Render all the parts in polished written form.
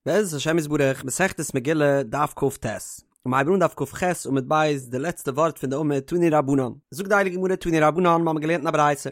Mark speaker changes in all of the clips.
Speaker 1: בעזרת השם יתברך, מסכת מגילה, דף כ"ט. מ'הייבט אן דף כ"ח עמוד ב', די לעצטע ווארט פון די עמוד, תנו רבנן. זאגט די הייליגע גמרא תנו רבנן, מ'האמיר געלערנט אין א ברייתא,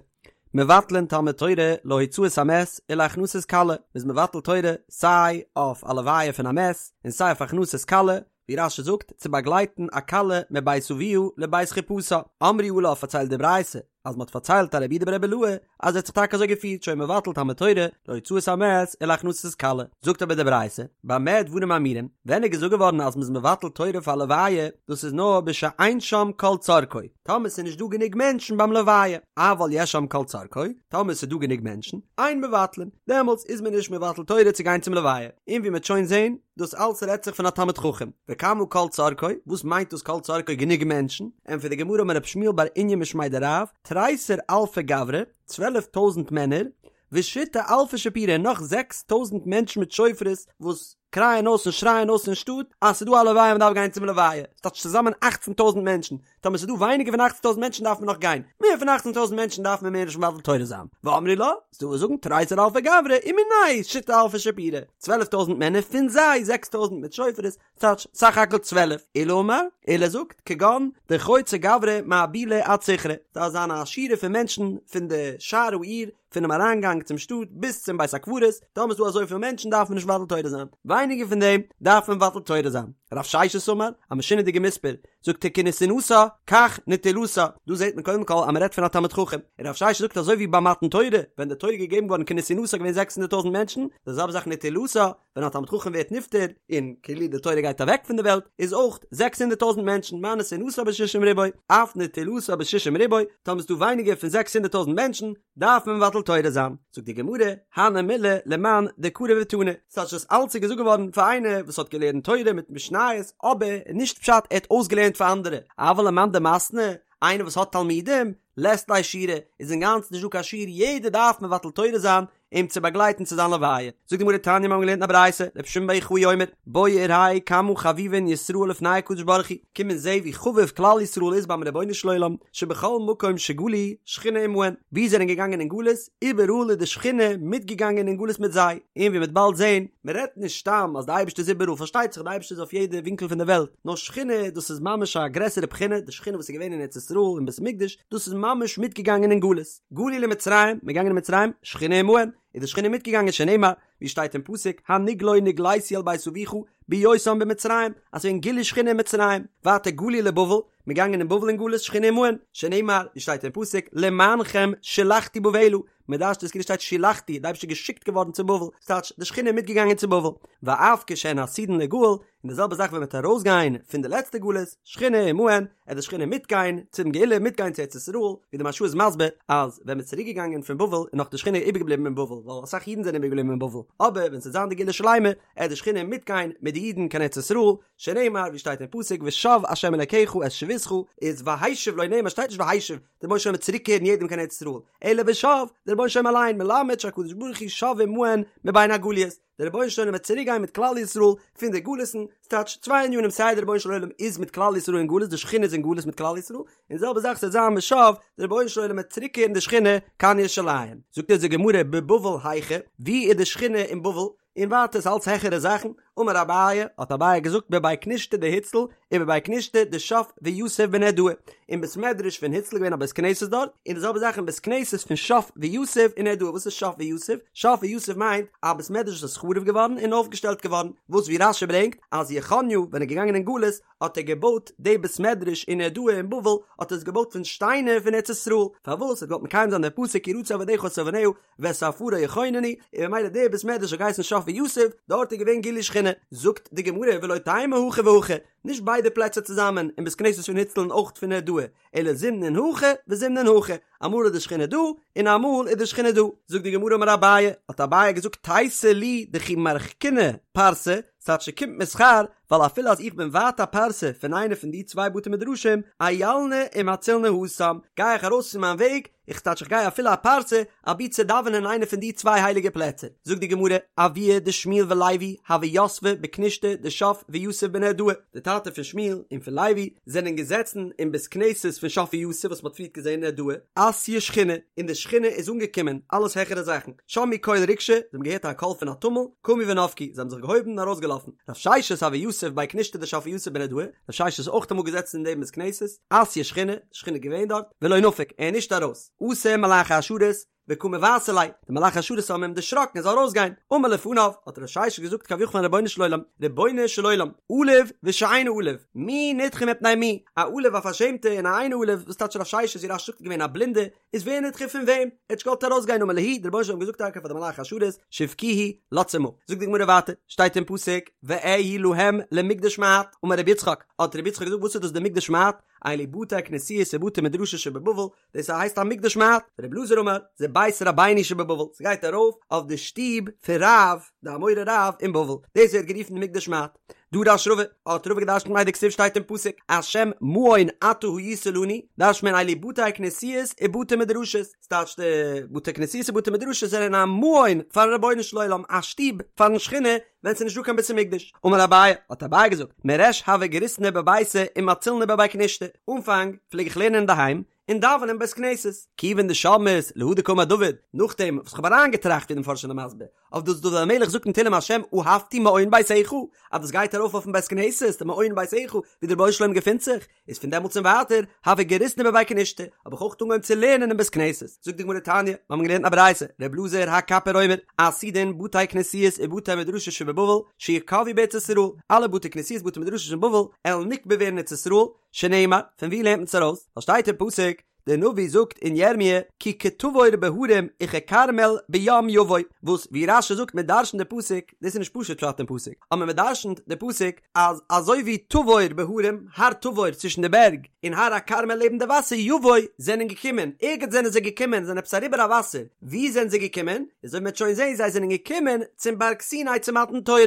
Speaker 1: מבטלין תלמוד תורה להוצאת המת ולהכנסת כלה, מ'איז מבטל תורה סיי אויף א לוויה פון א מת, און סיי אויף הכנסת כלה, ווי רש"י זאגט, צו באגלייטן א כלה מבית אביה לבית חופתה. אמרו עליו פארציילט די ברייתא, אז מ'האט פארציילט א רבי יהודה ברבי אלעאי אז ער האט זיך טאקע אזוי געפירט שהיה מבטל תלמוד תורה להוצאת המת ולהכנסת כלה. זאגט אבער די ברייתא, במה דברים אמורים, ווען איז געזאגט געווארן אז מ'איז מבטל תורה פאר א לוויה, דאס איז נאר בשאין שם כל צרכו, טאמער ס'איז נישט דא גענוג מענטשן ביים לוויה, אבל יש שם כל צרכו, טאמער ס'איז דא גענוג מענטשן, אין מבטלין, דעמאלטס איז מען נישט מבטל תורה צו גיין צום לוויה. און ווי מ'וועט שוין זען, דאס אלס רעדט זיך פון א תלמיד חכם. וכמה כל צרכו, וואס מיינט דאס כל צרכו גענוג מענטשן? ענטפערט די גמרא אמר רב שמואל בר איניא משמיה דרב, תריסר אלפי גברי, 12 טויזענט מענער, ושיתא אלפי שיפורי און נאך 6 טויזענט מענטשן מיט שופרות וואס קרייען אויס און שרייען אויס אין שטאט אז ס'איז דא א לוויה מ'דארף גיין צום לוויה, ס'טייטש צוזאמען אכצן טויזענט מענטשן, טאמער ס'איז דא ווייניגער פון אכצן טויזענט מענטשן דארף מען נאך גיין, מער פון אכצן טויזענט מענטשן דארף מען מער נישט מבטל תורה זיין, ואמרי לה, ס'דא וואס זאגן תריסר אלפי גברי ומינייהו שיתא אלפי שיפורי, 12 טויזענט מענער פון זיי 6 טויזענט מיט שופרות, ס'טייטש סך הכל 12, עולא אמר, עולא זאגט, כגון דחוצי גברי מאבולא עד סיכרא, דארף זיין א שורה פון מענטשן פון די שער העיר, פונעם אריינגאנג צום שטאט ביז צום בית הקברות, טאמער איז דא אזויפיל מענטשן דארף מען נישט מבטל תורה זיין, ווייניגער פון דעם דארף מען מבטל תורה זיין. רב ששת אמר, א משונה'דיגע מספר, זאגט ער כנתינתה כך נטילתה, דא זעט מען קודם כל אז מען רעדט פון א תלמיד חכם, און רב ששת זאגט אזוי ווי ביי מתן תורה, ווען די תורה איז געגעבן געווארן כנתינתה איז געווען 600 טויזנט מענטשן, די זעלבע זאך נטילתה, ווען א תלמיד חכם ווערט נפטר, און כאילו די תורה גייט אוועק פון די וועלט, איז אויך 600 טויזנט מענטשן, מה נתינתה בשישים ריבוא, אף נטילתה בשישים ריבוא, טאמער איז דא ווייניגער פון 600 טויזנט מענטשן, דארף מען מבטל תורה זיין. זאגט די גמרא, הני מילי למאן דקרי ותני, ס'טייטש דאס אלץ איז געזאגט געווארן פאר איינער וואס האט געלערנט תורה מיט משניות, אבער נישט פשט ער האט אויסגעלערנט פאר אנדערע, אבל למאן דמתני, איינער וואס האט תלמידים, לית ליה שיעורא, איז אינגאנצן נישט דא קיין שיעור, יעדער דארף מבטל תורה זיין אים צו באגלייטן צו זיין לוויה. זאגט די גמרא תניא מיר האבן געלערנט אין א ברייתא, רבי שמעון בר יוחאי אומר, בוא וראה כמה חביבין ישראל לפני הקדוש ברוך הוא, קום און זע ווי חביב כלל ישראל איז ביים רבונו של עולם, שבכל מקום שגלו שכינה עמהן, וואו זיי זענען געגאנגען אין גלות, איבעראל איז די שכינה מיטגעגאנגען אין גלות מיט זיי, און ווי מ'וועט באלד זען, מ'רעדט נישט סתם אז די אייבערשטער איז איבעראל, פארשטייט זיך די אייבערשטער איז אויף יעדע ווינקל פון די וועלט, נאר שכינה דאס איז ממש א גרעסערע בחינה, די שכינה וואס איז געווען אין ארץ ישראל אין בית המקדש, דאס איז ממש מיטגעגאנגען אין גלות. גלו למצרים, מ'איז געגאנגען אין מצרים, שכינה עמהן, איז די שכינה מיטגעגאנגען שנאמר, ווי שטייט אין פסוק, הנגלה נגליתי אל בית אביך בהיותם במצרים, אז ס'איז געווען גילוי שכינה אין מצרים, ווייטער גלו לבבל, מ'איז געגאנגען אין בבל אין גלות, שכינה עמהן, שנאמר, ווי שטייט אין פסוק, למענכם שולחתי בבלה, מ'דרש'נט עס כאילו שטייט שולחתי, די אייבערשטער איז געשיקט געווארן צו בבל, ס'טייטש, די שכינה איז מיטגעגאנגען צו בבל, ואף כשהן עתידין ליגאל, און די זעלבע זאך ווען מ'וועט ארויסגיין פון די לעצטע גלות, שכינה עמהן, עט די שכינה מיטגיין צום גאולה, מיטגיין צו ארץ ישראל, ווי די מהרש"א איז מסביר אז ווען מ'איז צוריק געגאנגען פון בבל איז נאך די שכינה איבערגעבליבן אין בבל, ווייל אסאך אידן זענען איבערגעבליבן אין בבל, אבער ווען ס'וועט זיין די גאולה שלימה, עט די שכינה מיטגיין מיט די אידן קיין ארץ ישראל, שנאמר ווי שטייט אין פסוק ושב ה' אלקיך את שבותך, איז והשיב לא נאמר שטייט נישט והשיב, דער רבונו של עולם וועט צוריקקערן יעדעם קיין ארץ ישראל, אלא ושב, דער רבונו של עולם אליין, מלמד שהקדוש ברוך הוא שב עמהן מבין הגליות. דער רבונו של עולם וועט צוריק גיין מיט כלל ישראל פון די גלות'ן, ס'טייטש צוויי ענינים סיי דער רבונו של עולם איז מיט כלל ישראל אין גלות די שכינה איז אין גלות מיט כלל ישראל, און די זעלבע זאך ס'וועט זיין ושב, דער רבונו של עולם וועט צוריק קערן די שכינה קיין ירושלים. זאגט אונז די גמרא בבבל היכא, ווי איז די שכינה אין בבל? און ווייטער ס'אלץ העכערע זאכן, אמר אביי, האט אביי געזאגט בבי כנישתא דהוצל, ובבי כנישתא דשף ויתיב בנהרדעא, אין בית מדרש פון הוצל איז געווען א בית כנסת דארט, און די זעלבע זאך אין בית כנסת פון שף ויתיב אין נהרדעא, וואס איז שף ויתיב? שף ויתיב מיינט א בית מדרש וואס איז חרוב געווארן און אויפגעשטעלט געווארן, וואס ווי רש"י ברענגט אז יכניה ווען ער איז געגאנגען אין גלות האט ער געבויט די בית מדרש אין נהרדעא אין בבל האט ער עס געבויט פון שטיינער פון ארץ ישראל, פארוואס? ער האט געוואלט מקיים זיין דעם פסוק כי רצו עבדיך את אבניה ואת עפרה יכוננו, און ממילא דער בית מדרש האט געהייסן שף ויתיב, דארט איז געווען גילוי שכינה. זאגט די גמרא ולא תימא הכא והכא, נישט ביידע פלעצער צוזאמען, אין בית כנסת פון הוצל און אויך פון נהרדעא, אלא זימנין הכא וזימנין הכא, אמאל איז די שכינה דא, און אמאל איז די שכינה דא. זאגט די גמרא אמר אביי, האט אביי געזאגט תיתי לי דכי מרחקינא פרסא, ס'טייטש ס'קומט מיר שכר. ווייל אפילו אז איך בין ווייט א פרסה פון איינע פון די צוויי בתי מדרשים, איילנא ומצילנא התם, גיי איך ארויס פון מיין וועג, איך טייטש איך גיי אפילו א פרסה, אבי צו דאווענען אין איינע פון די צוויי הייליגע פלעצער. זאגט די גמרא, אבוה דשמואל ולוי הוו יתבי בכנישתא דשף ויתיב בנהרדעא, די טאטע פון שמואל און פון לוי זענען געזעצן אין בית כנסת פון שף ויתיב וואס מען האט פריערט געזען אין נהרדעא, אתיא שכינה, און די שכינה איז אנגעקומען, אלעס העכערע זאכן, שמעו קול ריגשא, זיי האבן געהערט א קול פון א טומל, קמו ונפקו, זיי האבן זיך געהויבן און ארויסגעלאפן. רב ששת הוה יתיב בי כנישתא דשף ויתיב בנהרדעא, רב ששת איז אויך אמאל געזעצן אין דעם בית כנסת, אתיא שכינה, די שכינה איז געווען דארט, ולא נפק, ער איז נישט ארויס, אתו מלאכי השרת, וקא מבעתו ליה, די מלאכי השרת האבן אים דערשראקן ער זאל ארויסגיין, אמר לפניו, האט רב ששת געזאגט כביכול פארן רבונו של עולם, רבונו של עולם, עלוב ושאינו עלוב, מי נדחה מפני מי, א עלוב א פארשעמטע און א אינו עלוב, וואס טייטש רב ששת ווי רש"י זאגט איז געווען א בלינדע, איז ווער נדחה פון וועם? ער האט נישט געוואלט ארויסגיין אמר להו, דער רבונו של עולם האט געזאגט טאקע פאר די מלאכי השרת, שבקוהו, לאזטס אים אפ. זאגט די גמרא ווייטער, שטייט אין פסוק, ואהי להם למקדש מעט, אמר רבי יצחק, האט רבי יצחק געזאגט וואס איז דאס די מקדש מעט? אלו בתי כנסיות ובתי מדרשות שבבבל, דאס הייסט א מקדש מעט, רבי אלעזר אמר, זה בית רבינו שבבבל, ס'גייט ארויף אויף די שטוב פון רב, די אמורא רב אין בבל, דאס ווערט גערופן די מקדש מעט. דרש רבא, האט רבא געדרשנט מאי דכתיב שטייט אין פסוק, השם מעון אתה היית לנו, דרש'נט מען אלו בתי כנסיות ובתי מדרשות, ס'טייטש די בתי כנסיות ובתי מדרשות זענען א מעון פארן רבונו של עולם, א שטוב פארן שכינה ווען ס'איז נישטא קיין בית המקדש. אמר אביי, האט אביי געזאגט, מריש הוה גריסנא בביתא ומצילנא בבי כנישתא, אנפאנג פלעג איך לערנען אינדערהיים, און דאווענען אין בית כנסת. כיוון דשמעית להא דקאמר דוד, נאכדעם וואס כ'האב אריינגעטראכט ווי די מפרשים זענען מסביר, אויף דאס דוד המלך זאגט אין תהלים השם אהבתי מעון ביתך, אז דאס גייט ארויף אויפן בית כנסת, די מעון ביתך, ווי דער רבונו של עולם געפינט זיך, איז פון דעמאלטס און ווייטער, הוה גריסנא בבי כנישתא, האב איך אויך אנגעהויבן צו לערנען אין בית כנסת. זאגט די גמרא תניא, מיר האבן געלערנט א ברייתא, ר' אלעזר הקפר אומר, עתידין בתי כנסיות ובתי מדרשות שבבבל, שיקבעו בארץ ישראל, אלע בתי כנסיות בתי מדרשות אין בבל, עלן נקבע ווערן אין ארץ ישראל, שנאמר, פון ווי לערנט מען עס ארויס? ווייל שטייט אין פסוק, דער נביא זאגט אין ירמיה, כי כתבור בהרים וככרמל בים יבוא, וואס ווי רש"י זאגט מען דרש'נט די פסוק, דאס איז נישט פשוט פשט אין פסוק, אבער מען דרש'נט די פסוק אז אזוי ווי תבור בהרים, הר תבור צווישן די בערג, און הר הכרמל לעבן די וואסער, יבוא, זענען געקומען, ערגעץ זענען זיי געקומען, זענען עפעס אריבער א וואסער, וואו זענען זיי געקומען? אזוי ווי מען וועט שוין זען, זיי זענען געקומען צום בארג סיני צו מתן תורה.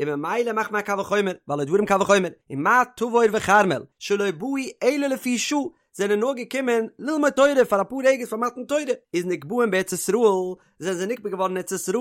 Speaker 1: און ממילא מאכט מען א קל וחומר, והלא דברים קל וחומר, ומה תבור וכרמל, שלא באו אלא לפי שעה, זענען נאר געקומען ללמוד תורה פאר אפאר רגעס פאר מתן תורה, איז נקבעין בארץ ישראל, זענען זיי נקבע געווארן אין ארץ ישראל,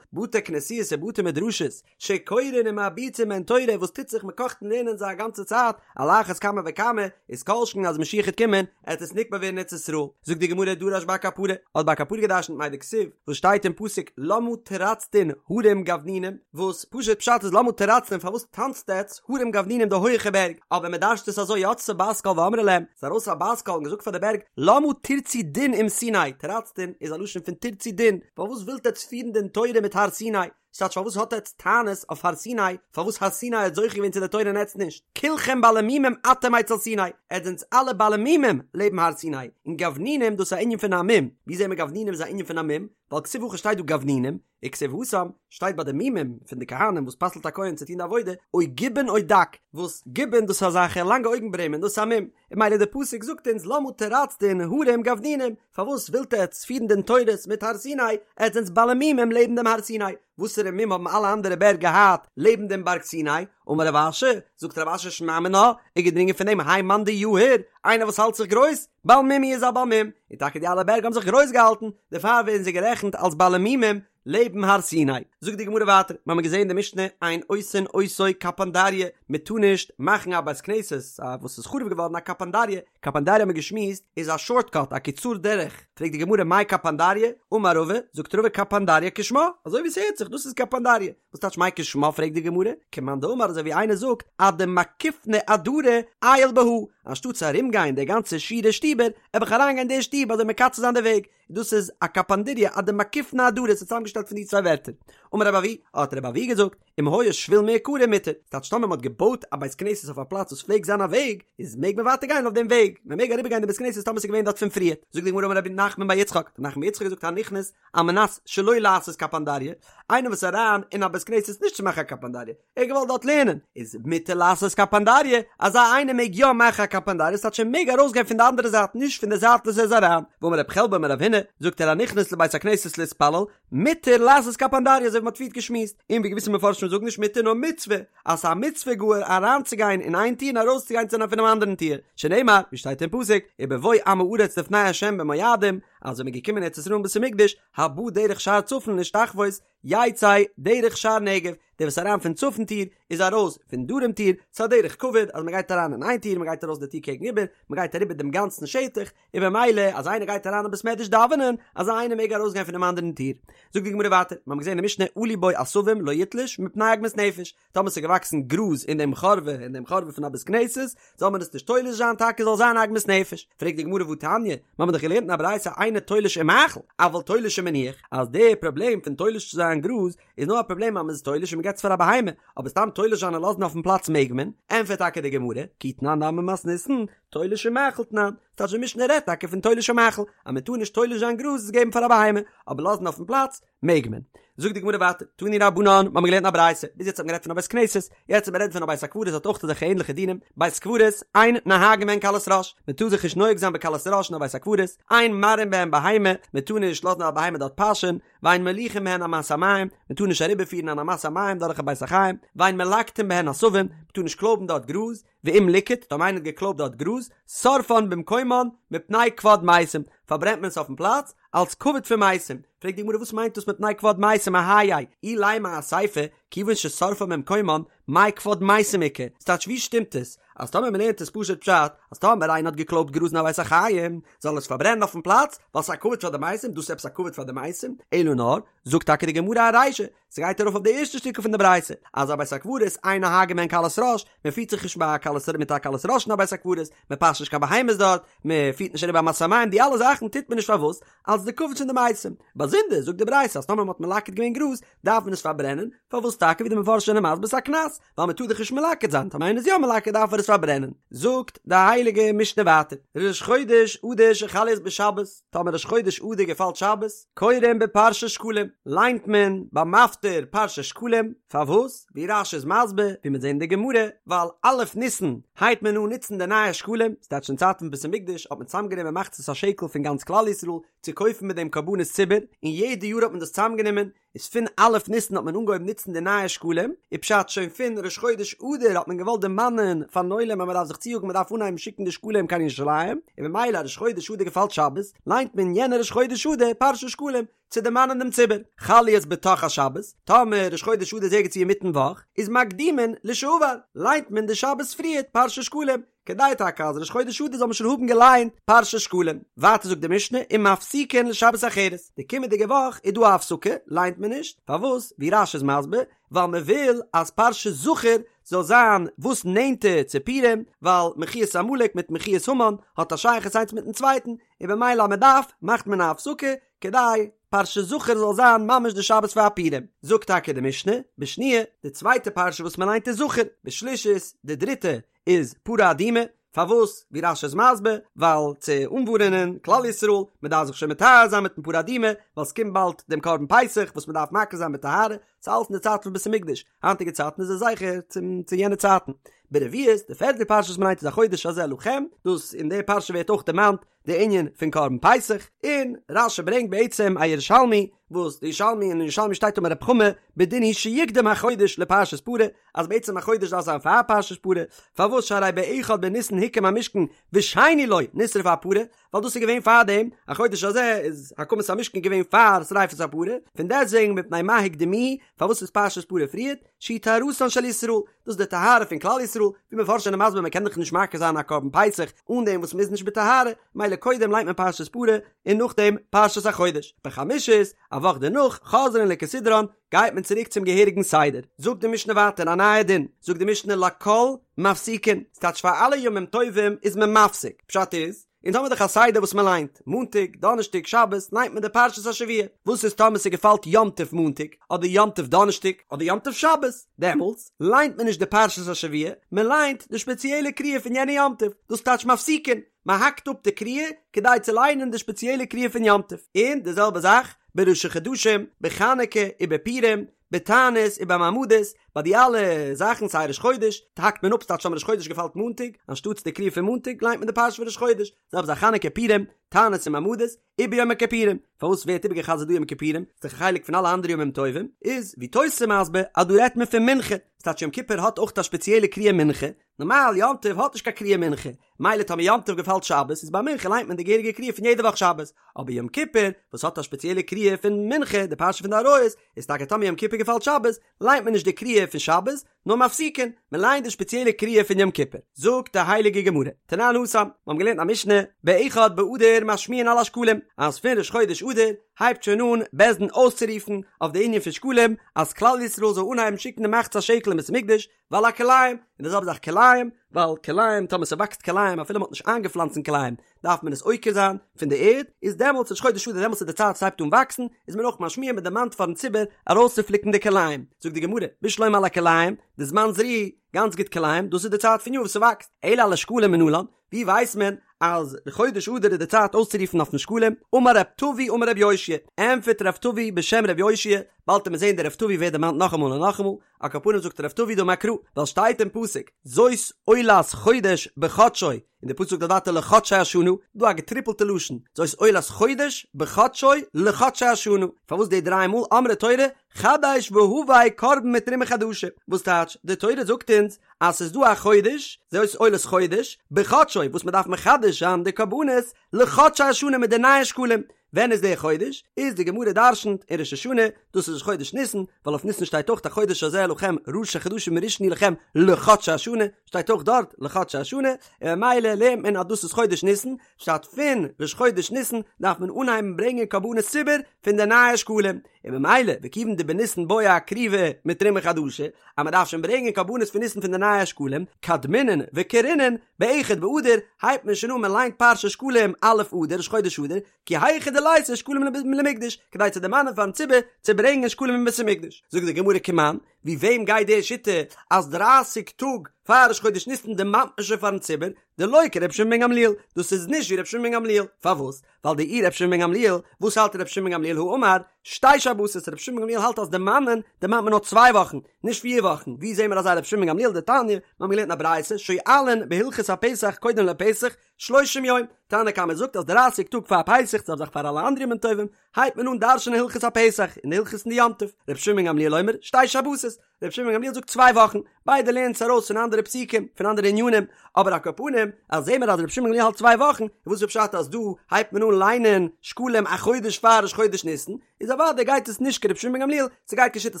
Speaker 1: בתי כנסיות ובתי מדרשות, שקורין ומרביצין בהן תורה, וואס טוט זיך מען קאכט אין לערנען זיי א גאנצע צייט, על אחת כמה וכמה, איז כל שכן אז משיח העט קומען, עט עס נקבע ווערן אין ארץ ישראל. זאגט די גמרא דרש בר קפרא, האט בר קפרא געדרשנט מאי דכתיב, וואס שטייט אין פסוק למה תרצדון הרים גבנונים, וואס פשוט פשט איז למה תרצדון פארוואס טאנצט עטץ הרים גבנונים די הויעכע בערג, אבער מען דרש'ט עס אזוי יצתה בת קול ואמרה להם, ס'איז ארויס א בת קול און געזאגט פאר די בערג למה תרצו דין עם סיני, תרצדון איז א לשון פון תרצו דין, פארוואס ווילט עטץ פירן דין תורה מיט הר סיני, ס'טייטש פארוואס האט עטץ טענות אויף הר סיני, פארוואס הר סיני האט זוכה געווען צו די תורה און עטץ נישט, כולכם בעלי מומים אתם אצל סיני, עטץ זענטס אלע בעלי מומים לעבן הר סיני, און גבנונים דאס איז א ענין פון א מום, ווי זעהן מיר גבנונים איז א ענין פון א מום, ווייל כתיב הכא שטייט דא גבנונים, וכתיב התם שטייט ביי די מומים פון די כהנים וואס פסל'ט א כהן צו טון די עבודה, או גבן או דק, וואס גבן דאס איז אזעלכע לאנגע אויגן ברעמען דאס איז א מום, און ממילא די פסוק זאגט אונז למה תרצדון הרים גבנונים, פארוואס ווילט עטץ פירן דין תורות מיט הר סיני, עטץ זענטס בעלי מומים לעבן דעם הר סיני, וואסערע מום האבן אלע אנדערע בערג געהאט לעבן דעם בארג סיני, אמר רב אשי, זאגט רב אשי שמע מינה, איז געדרינגען פון דעם האי מאן דיהיר, איינער וואס האלט זיך גרויס, בעל מום הוא איז א בעל מום, און טאקע די אלע בערג האבן זיך גרויס געהאלטן, דערפאר ווערן זיי גערעכנט אלס בעלי מומים לעבן הר סיני. זאגט די גמרא ווייטער, מיר האבן געזען אין די משנה אין עושין אותו קפנדריא, מען טאר נישט מאכן א בית כנסת א וואס איז חרוב געווארן א קפנדריא, קפנדריא האבן מיר געשמועסט איז א שארט קאט א קיצור דרך, פרעגט די גמרא מאי קפנדריא, אמר רבא, זאגט רבא קפנדריא כשמה, אזוי ווי ס'הערט זיך דאס איז קפנדריא, וואס טייטש מאי כשמה פרעגט די גמרא, כמאן דאמר אזוי ווי איינער זאגט אדמקיפנא עדרי עייל בהא, אנשטאט צו ארום גיין די גאנצע שורה שטיבער, עב איך אריין גיין די שטוב אזוי מקצר זיין די וועג, דאס איז א קפנדריא אדמקיפנא עדרי ס'איז צוזאמגעשטעלט פון די צוויי ווערטער. אמר רב אבהו, האט רב אבהו געזאגט, אם היה שביל מעיקרא מותר, ס'טייטש טאמער מ'האט געבויט א בית כנסת אויף א פלאץ וואס פלעגט זיין א וועג, איז מעג מען ווייטער גיין אויף דעם וועג, מען מעג אריבער גיין די בית כנסת טאמער ס'איז געווען דארט פון פריערט. זאגט די גמרא אמר רב נחמן בר יצחק, רב נחמן בר יצחק האט געזאגט הנכנס על מנת שלא לעשות קפנדריא. איינער וואס איז אריין אין א בית כנסת נישט צו מאכן א קפנדריא, ער האט געוואלט דארט לערנען, איז מותר לעשות קפנדריא, אזא איינער מעג יא מאכן א קפנדריא, ס'טייטש ער מעג ארויסגיין פון די אנדערע זייט נישט פון די זייט וואס ער איז אריין, ואמר רב חלבו אמר רב הונא, זאגט ער הנכנס לבית הכנסת להתפלל, מותר לעשות קפנדריא אזוי ווי מ'האט פריערט געשמועסט, און ווי געוויסע מפרשים זאגן נישט מותר נאר מצוה, אז ס'איז א מצוה גאר אריינצוגיין אין איין טיר און ארויסצוגיין צו פונעם אנדערן טיר, שנאמר, ווי שטייט אין פסוק, ובבוא עם הארץ לפני ה' במועדים, אז ווען מ'איז געקומען ארץ ישראל אין בית המקדש, הבא דרך שער צפון להשתחוות, יצא דרך שער נגב, דער וואס איז אריין פון צפון טיר איז ארויס פון דרום טיר, ס'איז א דרך כבוד אז מ'גייט אריין אין איין טיר מ'גייט ארויס די טיר קעגן איבער, מ'גייט אריבער דעם גאנצן שטח, און במילא אז איינער גייט אריין אין בית מדרש דאווענען, אזא איינער מעג ארויסגיין פונעם אנדערן טיר. זאגט די גמרא ווייטער, מיר האבן געזען אין משנה עלו בו עשבים לא יתלוש מפני עגמת נפש, טאמער ס'איז געוואקסן גראז אין דעם חורבה אין דעם חורבה פון א בית כנסת, זאל מען עס נישט תולש זיין טאקע זאל זיין עגמת נפש. פרעגט די גמרא והתניא, מיר האבן דאך געלערנט אין א ברייתא אינו תולש ומאכיל, אבל תולש ומניח, אז די פראבלעם פון תולש צו זיין גראז איז נאר א פראבלעם אז מ'איז תולש און מ'געט עס פאר א בהמה, אבער סתם תולש זיין און לאזן אויפן פלאץ מעג מען, ענטפערט טאקע די גמרא, כי תנן נמי מתניתין, תולש ומאכיל תנן, ס'טייטש די משנה רעדט טאקע פון תולש ומאכיל, אז מען טאר נישט תולש זיין גראז עס געבן פאר א בהמה, אבער לאזן אויפן פלאץ מעג מען. זאגט די גמרא ווייטער, תנו רבנן, מיר האבן געלערנט א ברייתא, ביז יעצט האט מען גערעדט פון א בית כנסת, יעצט וועט מען רעדן פון א בית הקברות האט אויך אזעלכע ענליכע דינים, בית קברות, אין נוהגין בהן קלות ראש, מען טאר זיך נישט נוהג זיין בקלות ראש אין א בית הקברות, אין מרעין בהן בהמה, מען טאר נישט לאזן א בהמה דארט פאשען, ואין מוליכין בהן אמת המים, מען טאר נישט אריבערפירן אן אמת המים דורך א בית החיים, ואין מלקטין בהן עשבים, מען טאר נישט קלויבן דארט גראז, ואם ליקט, טאמער איינער האט געקלויבט דארט גראז, שורפן במקומן, מפני כבוד מתים, פארברענט מען עס אויפן פלאץ, אלס כבוד פון מתים. פרעגט די גמרא וואס מיינט דאס מפני כבוד מתים אהייא, אילימא אסיפא, כיוון ששורפן במקומן, מאי כבוד מתים איכא, ס'טייטש ווי שטימט עס, אז טאמער מ'לערנט עס פשוט פשט, אז טאמער איינער האט געקלויבט גראז אין א בית החיים, זאל ער עס פארברענען אויפן פלאץ, ווייל ס'איז א כבוד פאר די מתים, דאס איז עפעס א כבוד פאר די מתים? אלא נאר, זאגט טאקע די גמרא ארישא, ס'גייט ארויף אויף די ערשטע שטיקל פון די ברייתא, אז א בית הקברות אין נוהגין בהן קלות ראש, מען פירט זיך נישט ביי א קלות מיט א קלות ראש אין א בית הקברות, מען פאשט נישט קיין בהמות דארט, מען פירט נישט אריבער אמת המים, די אלע זאכן טוט מען נישט פארוואס? אלס די כבוד פון די מתים. באזונדער זאגט די ברייתא אז טאמער מען האט מלקט געווען גראז, דארף מען עס פארברענען, פארוואס טאקע ווי די מפרשים זענען מסביר ס'איז א קנס, ווייל מען טאר דאך נישט מלקט זיין, טאמער איינער איז יא מלקט דארף ער עס פארברענען. זאגט די הייליגע משנה ווייטער, ראש חודש אדר שחל להיות בשבת, טאמער ראש חודש אדר געפאלט שבת, קורין בפרשת שקלים, ליינט מען ביים מפטיר פרשת שקלים, פארוואס? ווי רש"י איז מסביר, ווי מיר זעהן אין די גמרא, ווייל א' ניסן הייבט מען אן נוצן די נייע שקלים, ס'טייטש אין צייטן פון בית המקדש האט מען צוזאמגענומען מחצית השקל פון גאנץ כלל ישראל צו קויפן מיט דעם קרבנות ציבור, און יעדע יאר האט מען דאס צוזאמגענומען, איז פון א' ניסן האט מען אנגעהויבן נוצן די נייע שקלים, איז פשט שוין פון ראש חודש אדר האט מען געוואלט דערמאנען פארן עולם אז מען דארף זיך צויאגן מען דארף אנהייבן שיקן די שקלים קיין ירושלים, און ממילא ראש חודש אדר געפאלט שבת, ליינט מען יענע ראש חודש אדר פרשת שקלים, צו דערמאנען דעם ציבור. חל להיות בתוך השבת, טאמער ראש חודש אדר איז ערגעץ ווי אינמיטן וואך, איז מקדימין לשעבר, ליינט מען די שבת פריערט פרשת שקלים, כדי טאקע אז ראש חודש אדר זאל מען שוין האבן געליינט פרשת שקלים. ווייטער זאגט די משנה ומפסיקין לשבת אחרת, די קומענדיגע וואך איז דא א הפסקה, ליינט מען נישט, פארוואס? ווי רש"י איז מסביר, ווייל מען וויל אז פרשת זכור זאל זיין וואס נענטער צו פורים, ווייל מחיית עמלק מיט מחיית המן האט א שייכות איינס מיטן צווייטן, און במילא אז מען דארף, מאכט מען א הפסקה, כדי פרשת זכור זאל זיין ממש די שבת פאר פורים. זאגט טאקע די משנה, בשניה, די צווייטע פרשה וואס מען ליינט איז זכור, בשלישית, די דריטע, איז פרה אדומה, פארוואס? ווי רש"י איז מסביר, ווייל צו אנווארענען כלל ישראל, מען דארף זיך שוין מטהר זיין מיטן פרה אדומה, ווייל ס'קומט באלד דעם קרבן פסח וואס מען דארף מקריב זיין בטהרה, ס'איז אלעס אין די צייטן פון בית המקדש, היינטיגע צייטן איז עס זכר צום צו יענע צייטן. ברביעית, די פערטע פרשה וואס מען ליינט איז החודש הזה לכם, דאס אין די פרשה ווערט אויך דערמאנט די ענין פון קרבן פסח, און רש"י ברענגט בעצם א ירושלמי, וואס די ירושלמי אין ירושלמי שטייט אמר רב חמא בדין הוא שיקדם החודש לפרשת פרה, אז בעצם החודש דארף זיין פאר פרשת פרה, פארוואס שהרי באחד בניסן הוקם המשכן ושני לו נשרפה הפרה, ווייל דאס איז געווען פאר דעם, החודש הזה איז הקמת המשכן געווען פאר שריפת הפרה, פון דעסטוועגן מפני מה הקדימוהו, פארוואס איז פרשת פרה פריערט, שהיא טהרתן של ישראל, דאס איז די טהרה פון כלל ישראל, ווי מפרשים זענען מסביר מען קען דאך נישט מקריב זיין א קרבן פסח אן דעם וואס מען איז נישט בטהרה, מילא קודם ליינט מען פרשת פרה און נאכדעם פרשת החודש, בחמישית, א וואך דערנאך, חוזרין לכסדרן, גייט מען צוריק צום געהעריגן סדר. זאגט די משנה ווייטער א נייע דין, זאגט די משנה לכל מפסיקין, ס'טייטש פאר אלע ימים טובים איז מען מפסיק, פשט איז, אונז האמיר דאך א סדר וואס מען ליינט, מאנטאג, דאנערשטאג, שבת, ליינט מען די פרשת השבוע, וואס איז טאמער ס'געפאלט יום טוב מאנטאג, אדער יום טוב דאנערשטאג, אדער יום טוב שבת, דעמאלטס ליינט מען נישט די פרשת השבוע, מען ליינט די שפעציעלע קריאה פון יענע יום טוב, דאס טייטש מפסיקין, מען האקט אפ די קריאה כדי צו ליינען די שפעציעלע קריאה פון יום טוב, און די זעלבע זאך. בראשי חדשים, בחנוכה ובפורים, בתענית ובמעמדות, ביי די אלע זאכן סיי ראש חודש, האקט מען אפ ס'טייטש טאמער ראש חודש געפאלט מאנטאג, אנשטאטס די קריאה פון מאנטאג ליינט מען די פרשה פון ראש חודש, זעלבע זאך חנוכה פורים, תענית און מעמדות, וביום הכיפורים, פארוואס ווערט איבערגע'חזר'ט דא יום כיפורים, ס'איז דאך א חלק פון אלע אנדערע ימים טובים, איז ווי תוס' מסביר אז דא רעדט מען פון מנחה, ס'טייטש יום כיפור האט אויך א שפעציעלע קריאה מנחה, נארמאל יום טוב האט נישט קיין קריאה מנחה, מילא טאמער יום טוב געפאלט שבת איז ביי מנחה ליינט מען די געהעריגע קריאה פון יעדע וואך שבת, אבער יום כיפור וואס האט א שפעציעלע קריאה פון מנחה די פרשה פון די עריות, איז טאקע טאמער יום כיפור געפאלט שבת ליינט מען נישט די קריאה פון שבת, נאר מפסיקין, מען ליינט די שפעציעלע קריאה פון יום כיפור. זאגט די הייליגע גמרא, תנן התם, מיר האבן געלערנט א משנה, באחד באדר משמיעין על השקלים, אז פון ראש חודש אדר הייבט שוין אן בית דין אויסצורופן אויף די ענין פון שקלים, אז כלל ישראל זאל אנהייבן שיקן די מחצית השקל אין בית המקדש, ועל הכלאים, און די זעלבע זאך כלאים, ווייל כלאים, טאמער ס'וואקסט כלאים אפילו מ'האט נישט איינגעפלאנצן כלאים, דארף מען עס עוקר זיין פון די ערד, איז דעמאלטס ראש חודש אדר דעמאלטס איז די צייט ס'הייבט אן וואקסן, איז מען אויך משמיע מען דערמאנט פארן ציבור ארויסצופליקן די כלאים, זאגט די גמרא, בשלמא על הכלאים, דזמן זריעה, גאנץ גוט כלאים, דאס איז די צייט פון יאר וואס ס'וואקסט, אלא על השקלים מנלן, ווי ווייסט מען אז די חודש אדר איז די צייט אויסצורופן אויפן שקלים? אמר רב טבי אמר רב יאשיה, ענטפערט רב טבי בשם רב יאשיה, באלד וועט מען זען דער רב טבי ווערט דערמאנט נאכאמאל און נאכאמאל, על כל פנים זאגט רב טבי דאמר קרא, ווייל שטייט אין פסוק, זאת עולת חודש בחדשו, און די פסוק זאגט ווייטער לחדשי השנה, דא א געטריפלטע לשון, זאת עולת חודש בחדשו לחדשי השנה, פארוואס די דריי מאל אמרה תורה חדש והבא קרבן מתרומה חדשה, וואס טייטש, די תורה זאגט אונז אז ס'איז דא א חודש, זאת עולת חודש, בחדשו, וואס מ'דארף מחדש זיין די קרבנות לחדשי השנה מיט די נייע שקלים, ווען איז דער חודש? איז די גמרא דרשנ'ט אין ראש השנה, דאס איז ראש חודש ניסן, ווייל אויף ניסן שטייט אויך החודש הזה לכם ראשי חדשים ראשון הוא לכם לחדשי השנה, שטייט אויך דארט לחדשי השנה, און ממילא לערנט מען אז דאס איז חודש ניסן, פשט פון ראש חודש ניסן דארף מען אנהייבן ברענגען קרבנות ציבור פון די נייע שקלים, און ממילא וכיוון דבניסן בעי אקרובי מתרומה חדשה, אז מען דארף שוין ברענגען קרבנות פון ניסן פון די נייע שקלים, קדמינן וקרינן, באחד באדר הייבט מען שוין אן מען ליינט פרשת שקלים א' אדר ראש חודש אדר, כי היכי דליתו שקלים למקדש, כדי צו דערמאנען פארן ציבור צו ברענגען שקלים אין בית המקדש. זאגט די גמרא כמאן, ווי וועם גייט די שיטה אז דרייסיג טאג פאר ראש חודש ניסן דערמאנט מען שוין פארן ציבור, דלא כרבי שמעון בן גמליאל, דאס איז נישט ווי רבי שמעון בן גמליאל, פארוואס? ווייל דאי רבי שמעון בן גמליאל, וואס האלט רבי שמעון בן גמליאל הא אמר, שתי שבתות, רבי שמעון בן גמליאל האלט אז דערמאנען דערמאנט מען נאר צוויי וואכן, נישט פיר וואכן, ווי זעהן מיר אזא רבי שמעון בן גמליאל דתניא, מיר האבן געלערנט אין א ברייתא, שואלין בהלכות הפסח קודם לפסח, שלושים יום, תנא קמא זאגט אז דרייסיג טאג פאר פסח, זעלבע זאך פאר אלע אנדערע ימים טובים, הייבט מען אן דרש'נען הלכות הפסח, און די הלכות אין די יום טוב, רבי שמעון בן גמליאל אומר, שתי שבתות, רבי שמעון בן גמליאל זאגט צוויי וואכן, ביידע לערנען עס ארויס פון אנדערע פסוקים, פון אנדערע ענינים, אבער על כל פנים, אז זעהן מיר אז רבי שמעון בן גמליאל האלט צוויי וואכן, איז וואס איז פשט אז דא הייבט מען אן ליינען שקלים א חודש פאר ראש חודש ניסן, איז אוודאי גייט עס נישט כרבי שמעון בן גמליאל, ס'גייט כשיטת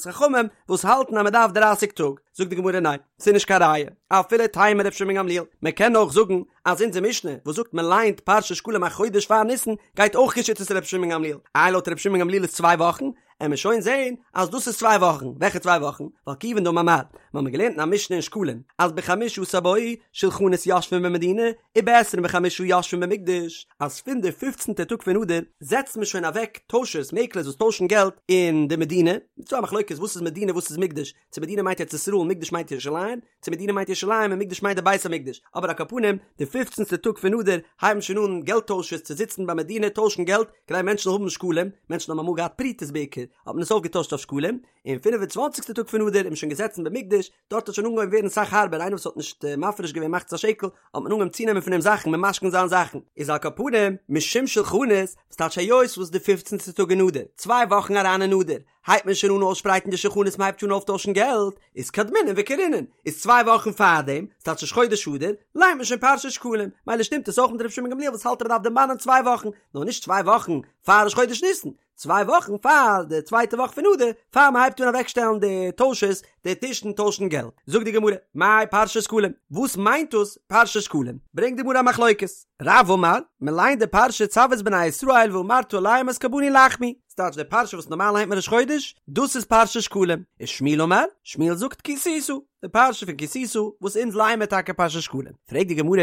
Speaker 1: חכמים וואס האלטן אז מ'דארף דרייסיג טאג, זאגט די גמרא ניין, ס'איז נישט קיין ראיה, אפילו תימא רבי שמעון בן גמליאל, מ'קען אויך זאגן אז אונזער משנה וואס זאגט מען ליינט פרשת שקלים א חודש פאר ניסן גייט אויך כשיטת רבי שמעון בן גמליאל, איי לויט רבי שמעון בן גמליאל איז צוויי וואכן, עמיר שוין זעהן אז דאס איז צוויי וואכן, וועלכע צוויי וואכן? ווייל כיוון דאמר מר, מיר האבן געלערנט אין א משנה אין שקלים אז בחמשה עשר בו שלחנות יושבין במדינה ובעשרים וחמשה יושבין במקדש, אז פון די פופצנטע טאג פון אדר זעצט מען שוין אוועק טוישערס, מעקלערס וואס טוישן געלט אין די מדינה, ס'איז דא א מחלוקת וואס איז מדינה וואס איז מקדש, צו מדינה מיינט ארץ ישראל מקדש מיינט ירושלים, צו מדינה מיינט ירושלים און מקדש מיינט די בית המקדש, אבער על כל פנים די פופצנסטע טאג פון אדר הייבן שוין אן געלט טוישערס צו זיצן ביי מדינה טוישן געלט כדי מענטשן זאלן האבן שקלים, מענטשן האבן אמאל געהאט פרוטות בעיקר האט מען עס אויפגעטוישט אויף שקלים, און פינף און צוואנציגסטע טאג פון אדר איז מען שוין געזעצן במקדש, דארט האט שוין אנגעהויבן ווערן סאך הארבער איינער וואס האט נישט מפריש געווען מחצית השקל האט מען אנגעהויבן צונעמען פון אים זאכן ממשכן זיין זאכן, איז על כל פנים משום שלחנות, וואס טייטש היות וואס די פופצנסטע טאג אין אדר, צוויי וואכן אריין אין אדר, הייבט מען שוין אן אויסשפרייטן די שולחנות מען הייבט שוין אן אויפטוישן געלט, איז קדמינן וקרינן, איז צוויי וואכן פארדעם, ס'טייטש ראש חודש אדר, ליינט מען שוין פרשת שקלים, מילא שטימט עס אויך מיט רבי שמעון גמליאל וואס האלט אז מ'דארף דערמאנען צוויי וואכן, נאר נישט צוויי וואכן פאר ראש חודש ניסן, צוויי וואכן פאר די צווייטע וואך פון אדר, פאר מען הייבט אן אוועקשטעלן די טוישערס, די טישן טוישן געלט. זאגט די גמרא, מאי פרשת שקלים, וואס מיינט דאס פרשת שקלים? ברענגט די גמרא א מחלוקת, רב אמר, מען ליינט די פרשה צו את בני ישראל ואמרת אליהם את קרבני לחמי, ס'טייטש די פרשה וואס נארמאל ליינט מען ראש חודש, דאס איז פרשת שקלים, ושמואל אמר, שמואל זאגט כי תשא, די פרשה פון כי תשא, וואס אונז לייען מיר טאקע פרשת שקלים. פרעגט די גמרא,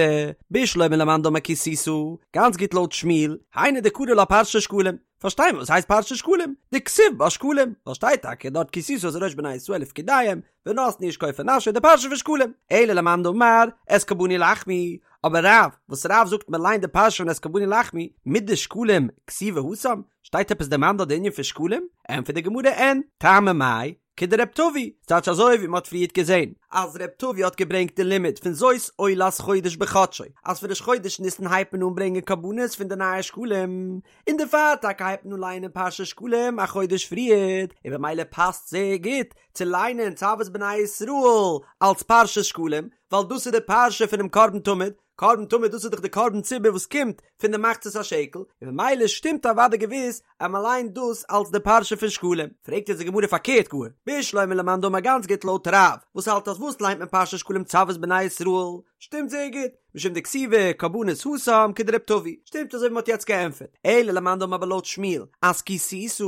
Speaker 1: בשלמא למאן דאמר כי תשא, גאנץ גוט לויט שמואל, היינו דקרי לה פרשת שקלים. פארשטיי מיר וואס הייסט פרשת שקלים, דכתיב בה שקלים, ווייל שטייט טאקע דארט כי תשא את ראש בני ישראל לפקודיהם, ונתנו איש כופר נפשו די פרשה פון שקלים, אלא למאן דאמר את קרבני לחמי, אבער רב, וואס רב זאגט מען ליינט די פרשה פון את קרבני לחמי, מדשקלים כתיבי התם, שטייט עפעס דערמאנט דארט די ענין פון שקלים? ענטפערט די גמרא אין, טעמא מאי, כדרב טבי, ס'טייטש אזוי ווי מ'האט פריערט געזען, אז רב טבי האט געברענגט די לימוד פון זאת עולת חודש בחדשו, אז פון ראש חודש ניסן הייבט מען אן ברענגען קרבנות פון די נייע שקלים, און דערפאר טאקע הייבט מען אן לייענען פרשת שקלים א חודש פריערט, און במילא פאסט זייער גוט צו ליינען צו את בני ישראל אלס פרשת שקלים, ווייל דאס איז די פרשה פונעם קרבן תמיד, קרבן תמיד דאס איז דאך די קרבן ציבור וואס קומט פון די מחצית השקל, און ממילא שטימט אוודאי געוויס אז מען ליינט דאס אלס די פרשה פון שקלים. פרעגט יעצט די גמרא פארקערט גאר, בשלמא למאן דאמר גאנץ גוט לויט רב, וואס האלט אז וואס ליינט מען פרשת שקלים צו את בני ישראל, שטימט זייער גוט, משום דכתיבי קרבנות התם כדרב טבי, שטימט אזוי ווי מען האט יעצט געענטפערט, אלא למאן דאמר אבער לויט שמואל אז כי תשא,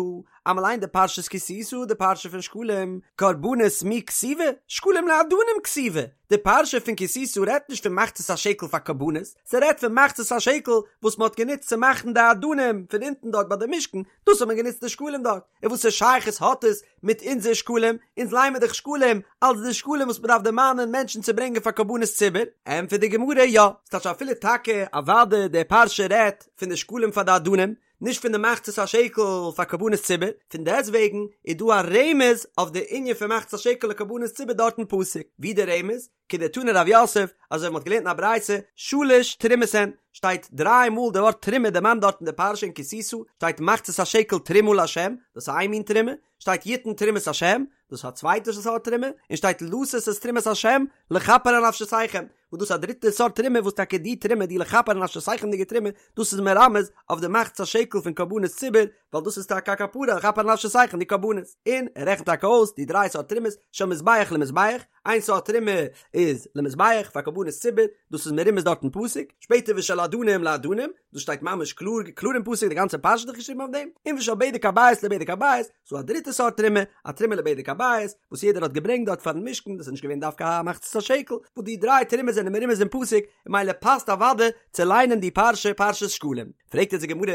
Speaker 1: אז מען ליינט די פרשת כי תשא די פרשה פון שקלים, קרבנות מי כתיבי, שקלים לאדנים כתיבי, די פרשה פון כי תשא רעדט נישט פון מחצית השקל פאר קרבנות, ס'רעדט פון מחצית השקל וואס מען האט גענוצט צו מאכן די אדנים פון אונטן דארט ביי די משכן, דאס האט מען גענוצט די שקלים דארט, און וואסער שייכות האט עס מיט אונזער שקלים, אונז ליינען מיר דאך שקלים אלס די שקלים וואס מען דארף דערמאנען מענטשן צו ברענגען פאר קרבנות ציבור, ענטפערט די גמרא יא, ס'טייטש אפילו טאקע אוודאי די פרשה רעדט פון די שקלים פאר די אדנים, נישט פון די מחצית השקל פאר קרבנות ציבור, פון דעסטוועגן איז דא א רמז אויף די ענין פון מחצית השקל לקרבנות ציבור דארט אין פסוק, ווי די רמז? כדתני רב יוסף, אזוי ווי מ'האט געלערנט אין א ברייתא, שלש תרומות הן, שטייט דריי מאל די ווארט תרומה דערמאנט דארט אין די פרשה אין כי תשא, שטייט מחצית השקל תרומה לה', דאס איז איין מין תרומה, שטייט יתן תרומת השם, דאס איז א צווייטע סארט תרומה, און שטייט לתת את תרומת השם לכפר על נפשותיכם, וואס דאס איז א דריטע סארט תרומה וואס טאקע די תרומה די לכפר על נפשותיכם'דיגע תרומה, דאס איז מרמז אויף די מחצית השקל פון קרבנות ציבור, ווייל דאס איז טאקע א כפרה לכפר על נפשותיכם די קרבנות, און ער רעכנט טאקע אויס די דריי סארט תרומות של מזבח למזבח, איין סארט תרומה איז למזבח פאר קרבנות ציבור, דאס איז מרומז דארט אין פסוק, שפעטער ושל אדנים לאדנים, דאס שטייט ממש קלאר קלאר אין פסוק די גאנצע פרשה איז דאך געשריבן אויף דעם, און ושל בדק הבית לבדק הבית, ס'דא א דריטע סארט תרומה, א תרומה לבדק הבית, וואס יעדער האט געברענגט דארט פארן משכן, דאס איז נישט געווען דווקא א מחצית השקל, וואס די דריי תרומות זענען מרומז אין פסוק, און ממילא פאסט אוודאי צו ליינען די פרשה פרשת שקלים. פרעגט יעצט די גמרא,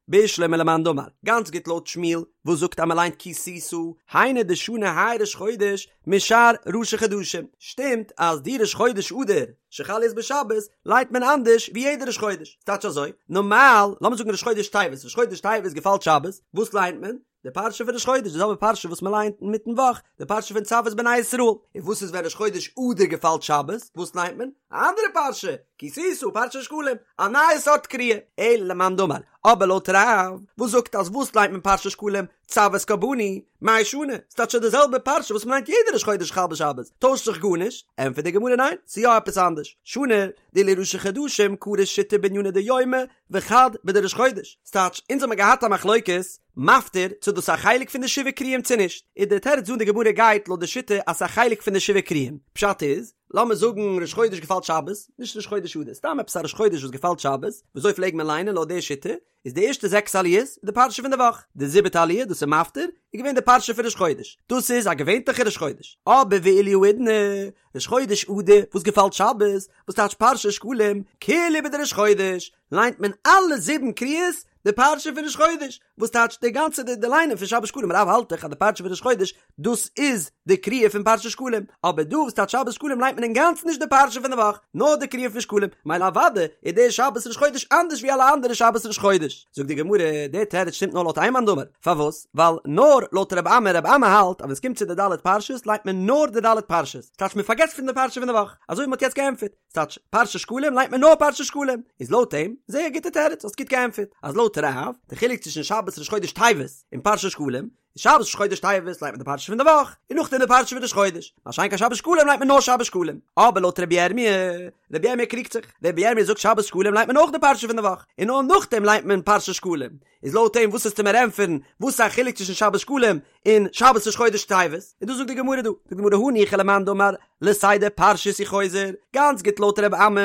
Speaker 1: בשלמא למאן דאמר, גאנץ גוט לויט שמואל, וואס זאגט אז מען ליינט כי תשא, היינו דשני האי ראש חודש משאר ראשי חדשים, שטימט אז די ראש חודש אדר שחל להיות בשבת ליינט מען אנדערש ווי יעדע ראש חודש, ס'טייטש אזוי, נארמאל, לאמיר זאגן ראש חודש טבת, ראש חודש טבת געפאלט שבת, וואס ליינט מען? די פרשה פון ראש חודש, די זעלבע פרשה וואס מען ליינט אינמיטן וואך, די פרשה פון צו את בני ישראל, און וואס איז ווען ראש חודש אדר געפאלט שבת, וואס ליינט מען? א אנדערע פרשה, כי תשא, פרשת שקלים, א נייע סארט קריאה, אלא למאן דאמר, אבער לויט רב, וואס זאגט אז וואס ליינט מען פרשת שקלים, צו את קרבני, מאי שני, ס'טייטש די זעלבע פרשה וואס מ'ליינט יעדע ראש חודש חל בשבת, טוישט זיך גארנישט, ענטפערט די גמרא ניין, ס'איז יא עפעס אנדערש, שני, דאילו ראשי חדשים קרו שיתא בענינא דיומא וחד בדראש חודש, ס'טייטש אונז האמיר געהאט א מחלוקת, מפטיר, צו דאס איז א חלק פון די שבעה קרואים צו נישט, איז די תירוץ דא אין די גמרא גייט לויט די שיטה אז ס'איז א חלק פון די שבעה קרואים, פשט איז, לאמיר זאגן ראש חודש געפאלט שבת, נישט ראש חודש אדר, סתם עפעס א ראש חודש וואס געפאלט שבת, וויאזוי פלעג מען ליינען לויט די שיטה, איז די ערשטע זעקס עליות איז די פרשה פון די וואך, די זיבעטע עליה דאס איז מפטיר, איז געווען די פרשה פון ראש חודש, דאס איז א געווענטליכע ראש חודש, אבער ואילו האידנא, ראש חודש אדר וואס געפאלט שבת, וואס טייטש פרשת שקלים, כולהו בדראש חודש, ליינט מען אלע זיבן קריאות די פרשה פון ראש חודש, וואס טייטש די גאנצע די די ליינען פון שבת שקלים, רב האלט דאך אז די פרשה פון ראש חודש דאס איז די קריאה פון פרשת שקלים, אבער דא וואס טייטש שבת שקלים ליינט מען אינגאנצן נישט די פרשה פון די וואך, נאר די קריאה פון שקלים, מילא אוודאי איז דער שבת ראש חודש אנדערש ווי אלע אנדערע שבת ראש חודש. זאגט די גמרא, דער תירוץ שטימט נאר לויט איין מאן דאמר, פארוואס? ווייל נאר לויט רב אמי, רב אמי האלט אז ווען עס קומט צו די ד' פרשות ליינט מען נאר די ד' פרשות, ס'טייטש מען פארגעסט פון די פרשה פון די וואך, אזוי ווי מען האט יעצט געענטפערט. ס'טייטש פרשת שקלים ליינט מען נאר פרשת שקלים, איז לויט אים, זייער גוטע תירוץ, האסט גוט געענטפערט, אז לויט רב, די חילוק צווישן שבת ראש חודש טבת און פרשת שקלים, איז שבת ראש חודש טבת ליינט מען די פרשה פון די וואך, און נאכדעם די פרשה פון ראש חודש, מה שאין כן שבת שקלים ליינט מען נאר שבת שקלים. אבער לויט רבי ירמי', רבי ירמי' קריגט זיך, רבי ירמי' זאגט שבת שקלים ליינט מען אויך די פרשה פון די וואך, און נאר נאכדעם ליינט מען פרשת שקלים, איז לויט אים וואס וועסטו מיר ענטפערן, וואס איז א חילוק צווישן שבת שקלים און שבת ראש חודש טבת, און דאס זאגט די גמרא דא, זאגט די גמרא הניחא למאן דאמר לסדר פרשיות הוא חוזר, גאנץ גוט לויט ר' אמי,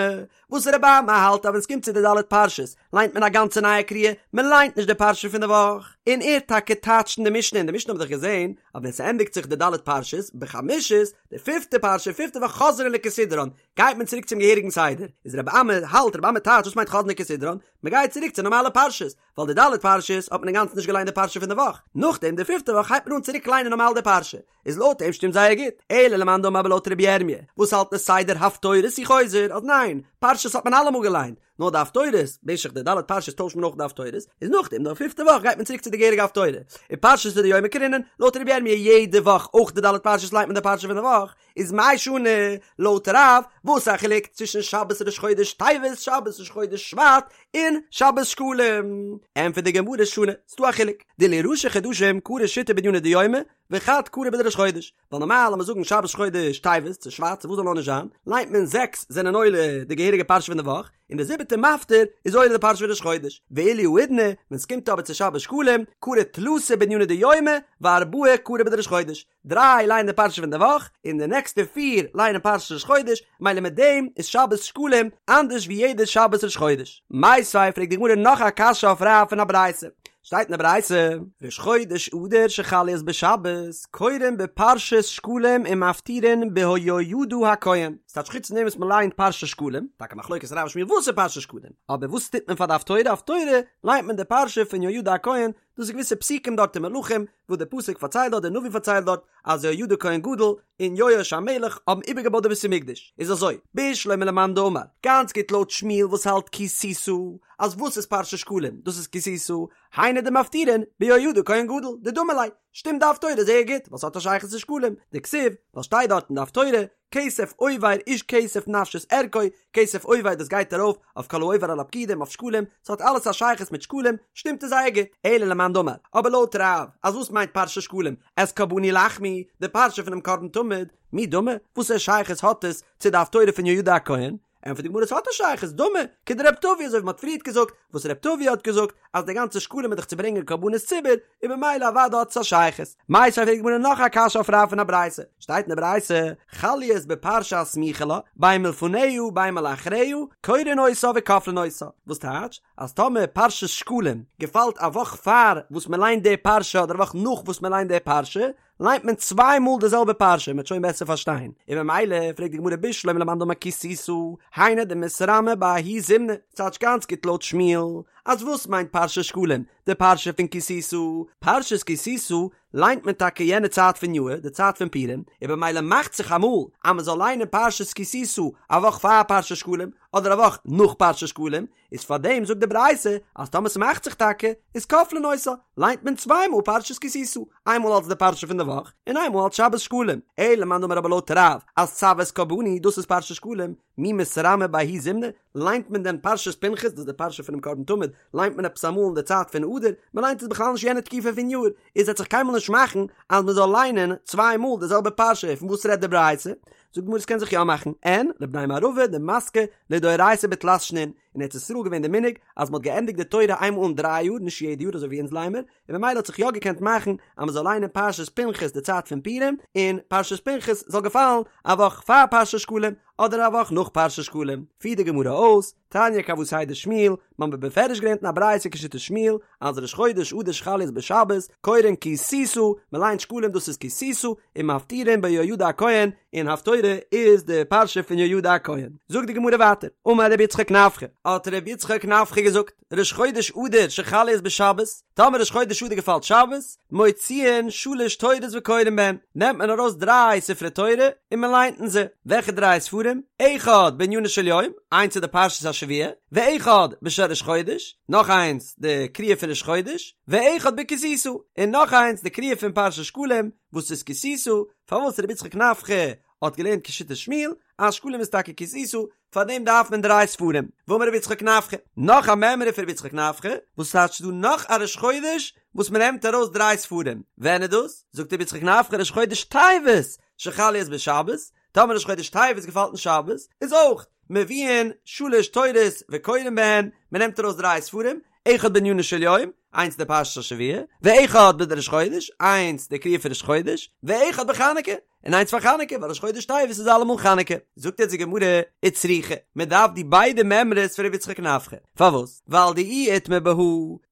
Speaker 1: וואס ר' אמי האלט אז ווען ס'קומט צו די ד' פרשות ליינט מען א גאנצע נייע קריאה, מען ליינט נישט די פרשה פון די וואך, און ער טאקע טייטשט אין די משנה, אין די משנה האבן מיר דאך געזען. אז ווען ס'ענדיגט זיך די ד' פרשות, בחמישית, די פיפטע פרשה, פיפטע וואך חוזרין לכסדרן, גייט מען צוריק צום געהעריגן סדר, איז רבי אמי האלט, רבי אמי טייטש וואס מיינט חוזרין לכסדרן, מ'גייט צוריק צו נארמאלע פרשות, ווייל די ד' פרשות האט מען אינגאנצן נישט געליינט די פרשה פון די וואך, נאכדעם די פיפטע וואך הייבט מען אן צוריק ליינען נארמאל די פרשה, איז לויט אים שטימט זייער גוט, אלא למאן דאמר אבער לויט רבי ירמי' וואס האלט לסדר הפטורות הוא חוזר, אז ניין, פרשות האט מען אלעמאל געליינט, נאר די הפטורות, במשך די ד' פרשות טוישט מען אויך די הפטורות, איז נאכדעם די פיפטע וואך גייט מען צוריק צו די געהעריגע הפטורה, ופרשתא דיומא קרינן, לויט רבי ירמי' יעדע וואך אויך די ד' פרשות ליינט מען די פרשה פון די וואך, איז מאי שנא, לויט רב, וואס איז א חילוק צווישן שבת ראש חודש טבת, שבת ראש חודש שבט, און שבת שקלים? ענטפערט די גמרא שנא, ס'דא א חילוק, דאילו ראשי חדשים קרו שיתא בענינא דיומא, וחד קרי בדראש חודש, ווייל נארמאל לאמיר זאגן שבת ראש חודש טבת צו שבט צו וואס זאל נאר נישט זיין, ליינט מען זעקס זענען עולה די געהעריגע פרשה פון די וואך, און די זיבעטע מפטיר איז עולה די פרשה פון ראש חודש, ואילו האידנא, ווען ס'קומט אבער צו שבת שקלים, קרו תלתא בענינא דיומא, וארבעה קרו בדראש חודש, דריי לייענען די פרשה פון די וואך, און די נעקסטע פיר לייענען פרשת ראש חודש, מילא מיט דעם איז שבת שקלים אנדערש ווי יעדע שבת ראש חודש. מיתיבי פרעגט די גמרא נאך א קשיא אויף רב פון א ברייתא. שטייט אין די ברייתא, ראש חודש אדר שחל להיות בשבת, קורין בפרשת שקלים ומפטירין ביהוידע הכהן. ס'טייטש חוץ פון דעם וואס מ'לייענט פרשת שקלים, טאקע מחלוקת רב ושמואל וואס איז פרשת שקלים, אבער וואס טוט מען פאר די הפטורה? הפטורה לייענט מען די פרשה פון יהוידע הכהן, דאס איז געוויסע פסוקים דארט אין מלכים, וואס דער פסוק פארציילט דארט, דער נביא פארציילט דארט, אז יהוידע כהן גדול און יואש המלך האבן איבערגעבויט די בית המקדש. איז אזוי, בשלמא למאן דאמר, גאנץ גוט לויט שמואל וואס האלט כי תשא, אז וואס איז פרשת שקלים, דאס איז כי תשא, היינו דמפטירין ביהוידע כהן גדול, דדמי ליה, שטימט די הפטורה זייער גוט, ווייל ס'האט א שייכות צו שקלים, דכתיב, ווייל שטייט דארט אין די הפטורה, כסף עובר איש כסף נפשית ערכו, כסף עובר דאס גייט ארויף אויף כל העובר על הפקודים אויף שקלים, ס'האט אלעס א שייכות מיט שקלים, שטימט עס זייער גוט, אלא למאן דאמר, אבער לויט רב, אז וואס מיינט פרשת שקלים, את קרבני לחמי, די פרשה פונעם קרבן תמיד, מי דמי, וואסערע שייכות האט עס צו די הפטורה פון יהוידע הכהן? ענטפערט די גמרא עס האט א שייכות, דמי, כדרב טבי אזוי ווי מ'האט פריערט געזאגט, וואס רב טבי האט געזאגט אז די גאנצע שקלים איז דאך צו ברענגען קרבנות ציבור, און במילא אוודאי האט עס א שייכות. מיתיבי פרעגט די גמרא נאך א קשיא אויף רב פון א ברייתא, שטייט אין די ברייתא, חל להיות בפרשה הסמוכה לה, בין מלפניה בין מלאחריה, קורין אותה וכופלין אותה, וואס טייטש אז טאמער פרשת שקלים געפאלט א וואך פאר וואס מ'ליינט די פרשה אדער א וואך נאך וואס מ'ליינט די פרשה, ליינט מען צוויי מאל די זעלבע פרשה, מ'וועט שוין בעסער פארשטיין. און ממילא פרעגט די גמרא בשלמא למאן דאמר כי תשא, היינו דמתרמי בההוא זימנא, ס'טייטש גאנץ גוט לויט שמואל, אז וואס מיינט פרשת שקלים? די פרשה פון כי תשא, פרשת כי תשא ליינט מען טאקע יענע צייט פון יאהר, די צייט פון פורים, און במילא מאכט זיך אמאל אז מ'זאל ליינען פרשת כי תשא א וואך פאר פרשת שקלים, אדער א וואך נאך פרשת שקלים, איז פאר דעם זאגט די ברייתא אז טאמער ס'מאכט זיך טאקע איז כופלין אותה, ליינט מען צוויי מאל פרשת כי תשא, איינמאל אלס די פרשה פון די וואך, און איינמאל אלס שבת שקלים. אלא למאן דאמר אבער לויט רב אז צו את קרבני דאס איז פרשת שקלים, מי מתרמי בההוא זימנא, ליינט מען דען פרשת פנחס דאס איז די פרשה פונעם קרבן תמיד, ליינט מען עפעס אמאל אין די צייט פון אדר, מען ליינט עס בכלל נישט יענע תקופה פון יאר, איז וועט זיך קיינמאל נישט מאכן אז מען זאל ליינען צוויי מאל די זעלבע פרשה, פון וואס רעדט די ברייתא? זאגט די גמרא עס קען זיך יא מאכן, אין לבני מערבא דמסקי לדאורייתא בתלת שנין, אין ארץ ישראל געווען די מנהג אז מען האט געענדיגט די תורה איינמאל אין דריי יאר נישט יעדע יאר אזוי ווי אונז ליינמער, און ממילא האט זיך יא געקענט מאכן אז מען זאל ליינען פרשת פנחס די צייט פון פורים, און פרשת פנחס זאל געפאלן א וואך פאר פרשת שקלים אדער א וואך נאך פרשת שקלים, פירט די גמרא אויס, תניא כוותיה דשמואל, מ'האט בפירוש געלערנט אין א ברייתא כשיטת שמואל, אז ראש חודש אדר שחל להיות בשבת, קורין כי תשא, מ'ליינט שקלים דאס איז כי תשא, און מפטירין ביהוידע הכהן, און הפטורה איז די פרשה פון יהוידע הכהן. זאגט די גמרא ווייטער, אמר רבי יצחק נפחא, האט רבי יצחק נפחא געזאגט, ראש חודש אדר שחל להיות בשבת, טאמער ראש חודש אדר געפאלט שבת, מוציאין שלש תורות וקורין בהן, נעמט מען ארויס דריי ספרי תורה און מען ליינט אין זיי, וועלכע דריי ספרים? אחד בענינו של יום, איינס איז די פרשת השבוע, ואחד בשל ראש חודש, נאך איינס די קריאה פון ראש חודש, ואחד בכי תשא, און נאך איינס די קריאה פון פרשת שקלים, וואס איז כי תשא, פארוואס רבי יצחק נפחא האט געלערנט כשיטת שמואל, אז שקלים איז טאקע כי תשא, פאר דעם דארף מען דריי ספרים, ואמר רבי יצחק נפחא, נאך א מימרא פון רבי יצחק נפחא, וואס טייטש ס'דא נאך א ראש חודש וואס מען נעמט ארויס דריי ספרים, ווען איז דאס? זאגט רבי יצחק נפחא ראש חודש טבת שחל להיות בשבת, טאמער ראש חודש טבת געפאלט אין שבת, איז אויך מביאין שלש תורות וקורין בהן, מען נעמט ארויס דריי ספרים, אחד בענינו של יום, איינס די פרשת השבוע, ואחד בדראש חודש, איינס די קריאה פון ראש חודש, ואחד בחנוכה, און איינס פאר חנוכה, ווייל ראש חודש טבת איז אלעמאל חנוכה. זאגט יעצט די גמרא, וצריכא, מען דארף די ביידע מימרות פון רבי יצחק נפחא. פארוואס? ווייל דאי איתמר בהא,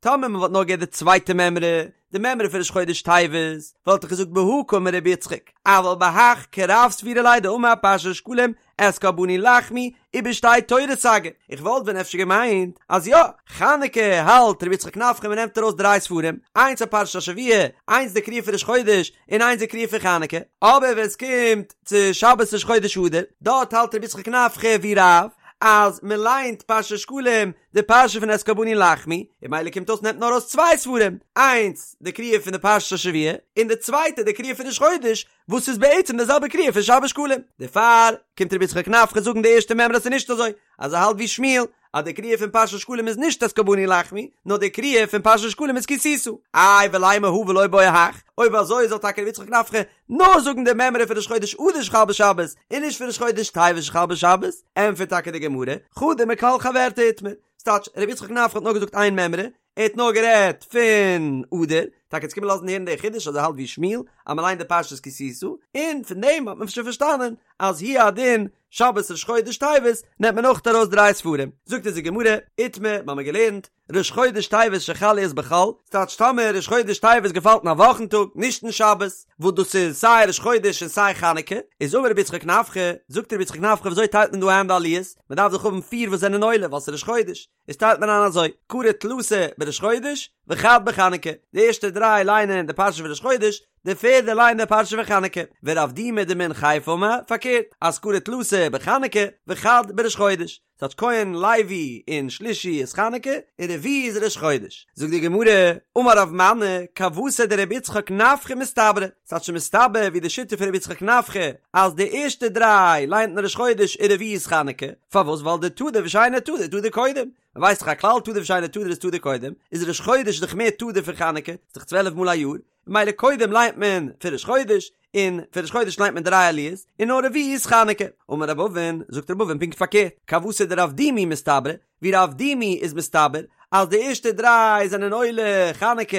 Speaker 1: טאמער מען וואלט נאר געהערט די צווייטע מימרא, די מימרא פון ראש חודש טבת, וואלט איך געזאגט בהא קאמר רבי יצחק, אבל בהך כרב סבירא ליה דאמר פרשת שקלים את קרבני לחמי ובשתי תורות סגי, איך וואלט ווען אפשר געמיינט אז יא, חנוכה האלט רבי יצחק נפחא מען נעמט ארויס דריי ספרים, איינס אויף פרשת השבוע, איינס די קריאה פון ראש חודש, און איינס די קריאה פון חנוכה, אבער ווען עס קומט צו שבת ראש חודש אדר, דארט האלט רבי יצחק נפחא ווי רב, אז מען ליינט פרשת שקלים די פרשה פון את קרבני לחמי, און ממילא קומט אויס נעמט מען ארויס צוויי ספרים, איינס די קריאה פון די פרשת השבוע, און די צווייטע די קריאה פון ראש חודש, וואס איז בעצם די זעלבע קריאה פון שבת שקלים. דערפאר קומט רבי יצחק נפחא זאגן די ערשטע מימרא אז ס'איז נישט אזוי, אז ער האלט ווי שמואל, אז די קריאה פון פרשת שקלים איז נישט את קרבני לחמי, נאר די קריאה פון פרשת שקלים איז כי תשא. איי ולימא הא ולא בעי הך, אויב אזוי זאל טאקע רבי יצחק נפחא נאר זאגן די מימרא פון ראש חודש אדר שחל בשבת, און נישט פון ראש חודש טבת שחל בשבת, ענטפערט טאקע די גמרא, חדא מכלל חברתה איתמר, ס'טייטש, רבי יצחק נפחא האט נאר געזאגט איין מימרא, ער האט נאר גערעדט פון אדר, טאקע איז געקומען לאזן הערן די חידוש אז ער האלט ווי שמואל אז מען ליינט די פרשת כי תשא, און פון דעם האט מען שוין פארשטאנען אז הוא הדין שבת ראש חודש טבת נעמט מען אויך ארויס דריי ספרים, זאגט אונז די גמרא, איתמר, מיר האבן געלערנט, ראש חודש טבת שחל להיות בחול, ס'טייטש טאמער ראש חודש טבת געפאלט אין א וואכן טאג, נישט אין שבת, וואס דאס איז סיי ראש חודש און סיי חנוכה, איז אמר רבי יצחק נפחא, זאגט רבי יצחק נפחא וויאזוי טיילט מען דא איין די עליות, מען דארף דאך האבן פיר וואס זענען עולה ווייל ס'איז ראש חודש, איז טיילט מען איין אזוי, קרי תלתא בראש חודש, וחד בחנוכה, די ערשטע דריי ליינען די פרשה פון ראש חודש, די פערדע ליינט די פרשה פון חנוכה, ורב דימי דמן חיפא אמר, פארקערט, אז קרי תלתא בחנוכה, וחד בראש חודש, ס'טייטש כהן, לוי און שלישי איז חנוכה, און רביעי איז ראש חודש. זאגט די גמרא, אמר רב מני, כוותיה דרבי יצחק נפחא מסתברא, ס'טייטש מסתבר ווי די שיטה פון רבי יצחק נפחא, אז די ערשטע דריי ליינט מען ראש חודש און רביעי איז חנוכה, פארוואס ווייל דתדיר ושאינו תדיר תדיר קודם, מען ווייסט דאך א כלל תדיר ושאינו תדיר איז תדיר קודם, איז ראש חודש דאך מער תדיר פון חנוכה, ס'איז דאך צוועלף מאל א יאר, ממילא קודם ליינט מען פון ראש חודש, און פון ראש חודש ליינט מען דריי עליות, און נאר רביעי איז חנוכה. אמר רב אבין, זאגט רב אבין פונקט פארקערט, כוותיה דרב דימי מסתברא, ווי רב דימי איז מסתבר אז די ערשטע דריי זענען עולה חנוכה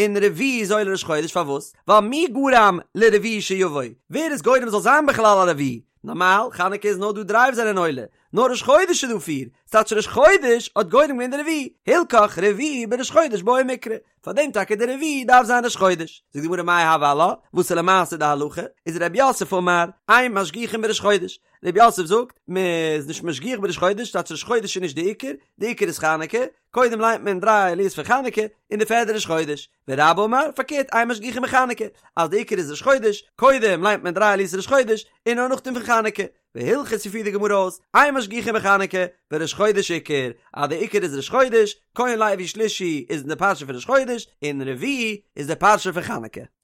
Speaker 1: און רביעי איז עולה ראש חודש, פארוואס? ווייל מי גרם לרביעי שיבוא, ווער איז גורם זאל זיין בכלל א רביעי? נארמאל חנוכה איז נאר דא דריי וואס זענען עולה, נאר ראש חודש איז דא פיר, ס'טייטש ראש חודש האט גורם געווען די רביעי, הלכך רביעי בראש חודש בעי מיקרי, פארדעם טאקע די רביעי דארף זיין ראש חודש. זאגט די גמרא מאי הוי עלה, וואס איז למעשה די הלכה? איז רב יוסף אמר, אין משגיחין בראש חודש, רב יוסף זאגט, מען איז נישט משגיח בראש חודש, ס'טייטש ראש חודש איז נישט די עיקר, די עיקר איז חנוכה, קודם ליינט מען דריי עליות פון חנוכה, און די פערדע ראש חודש. ורבה אמר, פארקערט, אין משגיחין בחנוכה, אז די עיקר איז ראש חודש, קודם ליינט מען דריי עליות ראש חודש, און נאר נאכדעם פון חנוכה. והלכתא פירט די גמרא אויס, אין משגיחין בחנוכה, וראש חודש עיקר, אז די עיקר איז ראש חודש, כהן לוי שלישי איז אין די פרשה פון ראש חודש, און רביעי איז די פרשה פון חנוכה.